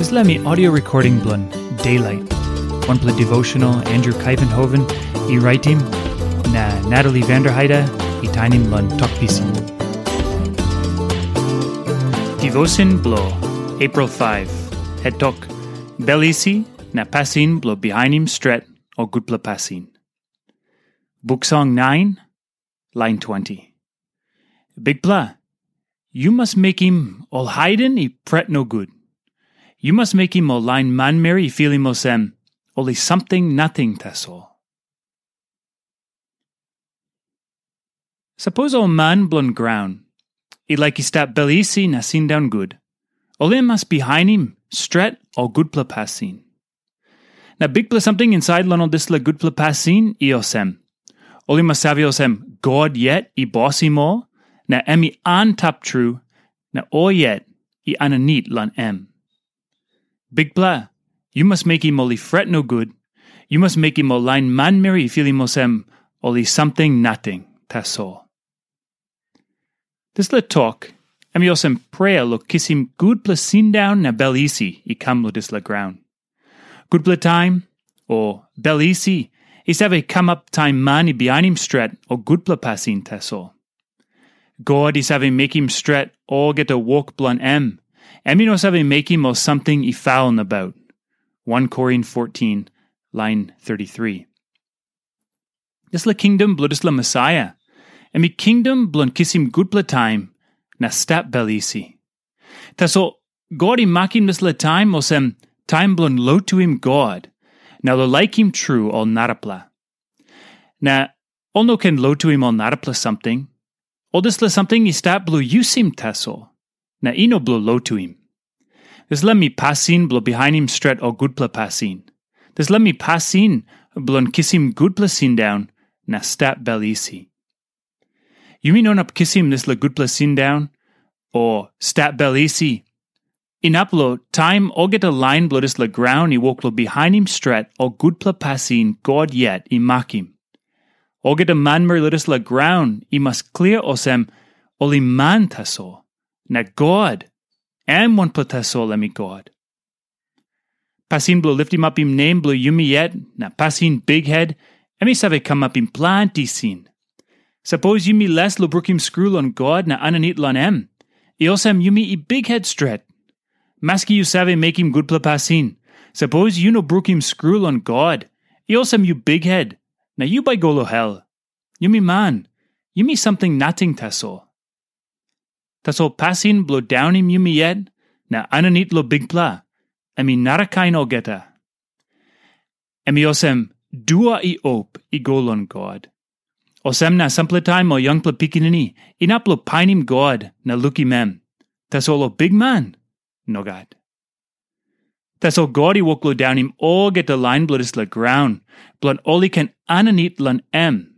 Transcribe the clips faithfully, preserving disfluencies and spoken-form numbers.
Dispela mi audio recording bilong Daylight, wanpela devotional Andrew Kaivenhoven i raitim, na Natalie Vanderheide i tainim long Tok Pisin. Devotion bilong April five, het tok, Bel isi na pasin bilong bihainim stret o gutpela pasin. Buk Song nine, lain twenty. Bikpela, yu mas mekim ol haiden i pret nogut. Yu mas mekim ol lain manmeri i filim olsem ol i samting nating tasol. Sapos ol man bilong graun i laik i stap bel isi na sindaun gut, ol i mas bihainim stret ol gutpela pasin. Na bikpela samting insait long ol dispela gutpela pasin i olsem, ol i mas save olsem God yet i bosim ol, na em i antap tru, na ol yet i aninit long em. Bikpela, yu mas mekim ol i fret nogut, yu mas mekim ol lain manmeri i filim olsem ol i samting nating tasol. Dispela tok, em i olsem prea long kisim gutpela sindaun na bel isi i kam long dispela graun. Gutpela taim, o bel isi, i save kamap taim man i bihainim stret o gutpela pasin tasol. God i save mekim stret olgeta wok bilong em. Em i no save mekim ol samting i faul nabaut. One Korin fourteen, lain thirty-three. Dispela kingdom bilong dispela Mesaia, em i kingdom bilong kisim gutpela taim na stap bel isi. Tasol God i makim dispela taim olsem taim bilong lotuim God, na long laikim tru ol narapela. Na ol no ken lotuim ol narapela samting. Ol dispela samting i stap bilong yusim tasol, na i no bilong lotuim. Dispela mi pasin bilong bihainim stret ol gutpela pasin. Dispela mi pasin bilong kisim gutpela sindaun na stap bel isi. Yumi no inap kisim dispela gutpela sindaun o stap bel isi inap long taim olgeta lain bilong dispela graun i wok long bihainim stret ol gutpela pasin God yet i makim. Olgeta manmeri long dispela graun i mas klia olsem ol i man tasol, na God, em wanpela tasol em i God. Pasin bilong litimapim nem bilong yumi yet na pasin bikhet, em i save kamapim planti sin. Sapos yumi les long brukim skru long God na aninit long em, i olsem yumi i bikhet stret. Maski yu save mekim gutpela pasin, sapos yu no brukim skru long God, i olsem yu bikhet, na yu bai go long hel. Yumi man, yumi samting nating tasol. Tasol pasin bilong daunim yumi yet na aninit long Bikpela, em i narakain olgeta. Em i olsem dua i op i go long God. Olsem na sampela taim ol yangpela pikinini inap long painim God na lukim em. Tasol ol bikman, nogat. Tasol God i wok long daunim olgeta lain bilong dispela graun, bilong ol i ken aninit long em.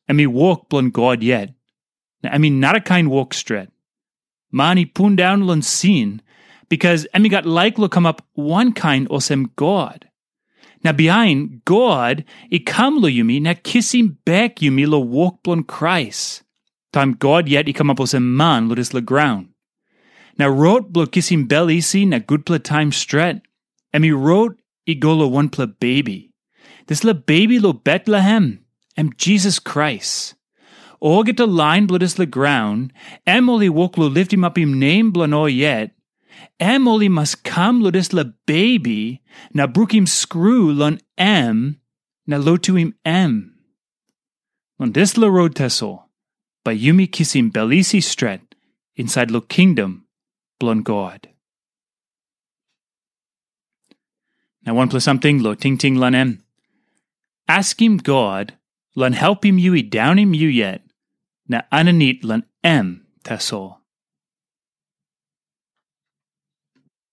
Em i wok bilong God yet, na em i narakain wok stret. Man i pundaun long sin, bikas em i gat laik long kamap wankain olsem God. Na bihain God i kam long yumi na kisim bek yumi long wok bilong Krais, taim God yet i kamap olsem man long dispela graun. Na rot bilong kisim bel isi na gutpela taim stret, em i rot i go long wanpela bebi. Dispela bebi long Betlehem, em Jisas Krais. Olgeta lain bilong dispela graun, em ol i wok long litimapim nem bilong ol yet, em ol i mas kam long dispela bebi na brukim skru long em na lotuim em. Long dispela rot tasol, bai yumi kisim bel isi stret insait long kingdom bilong God. Na wanpela samting long tingting long em. Askim God long helpim yu i daunim yu yet, na aninit long em tasol.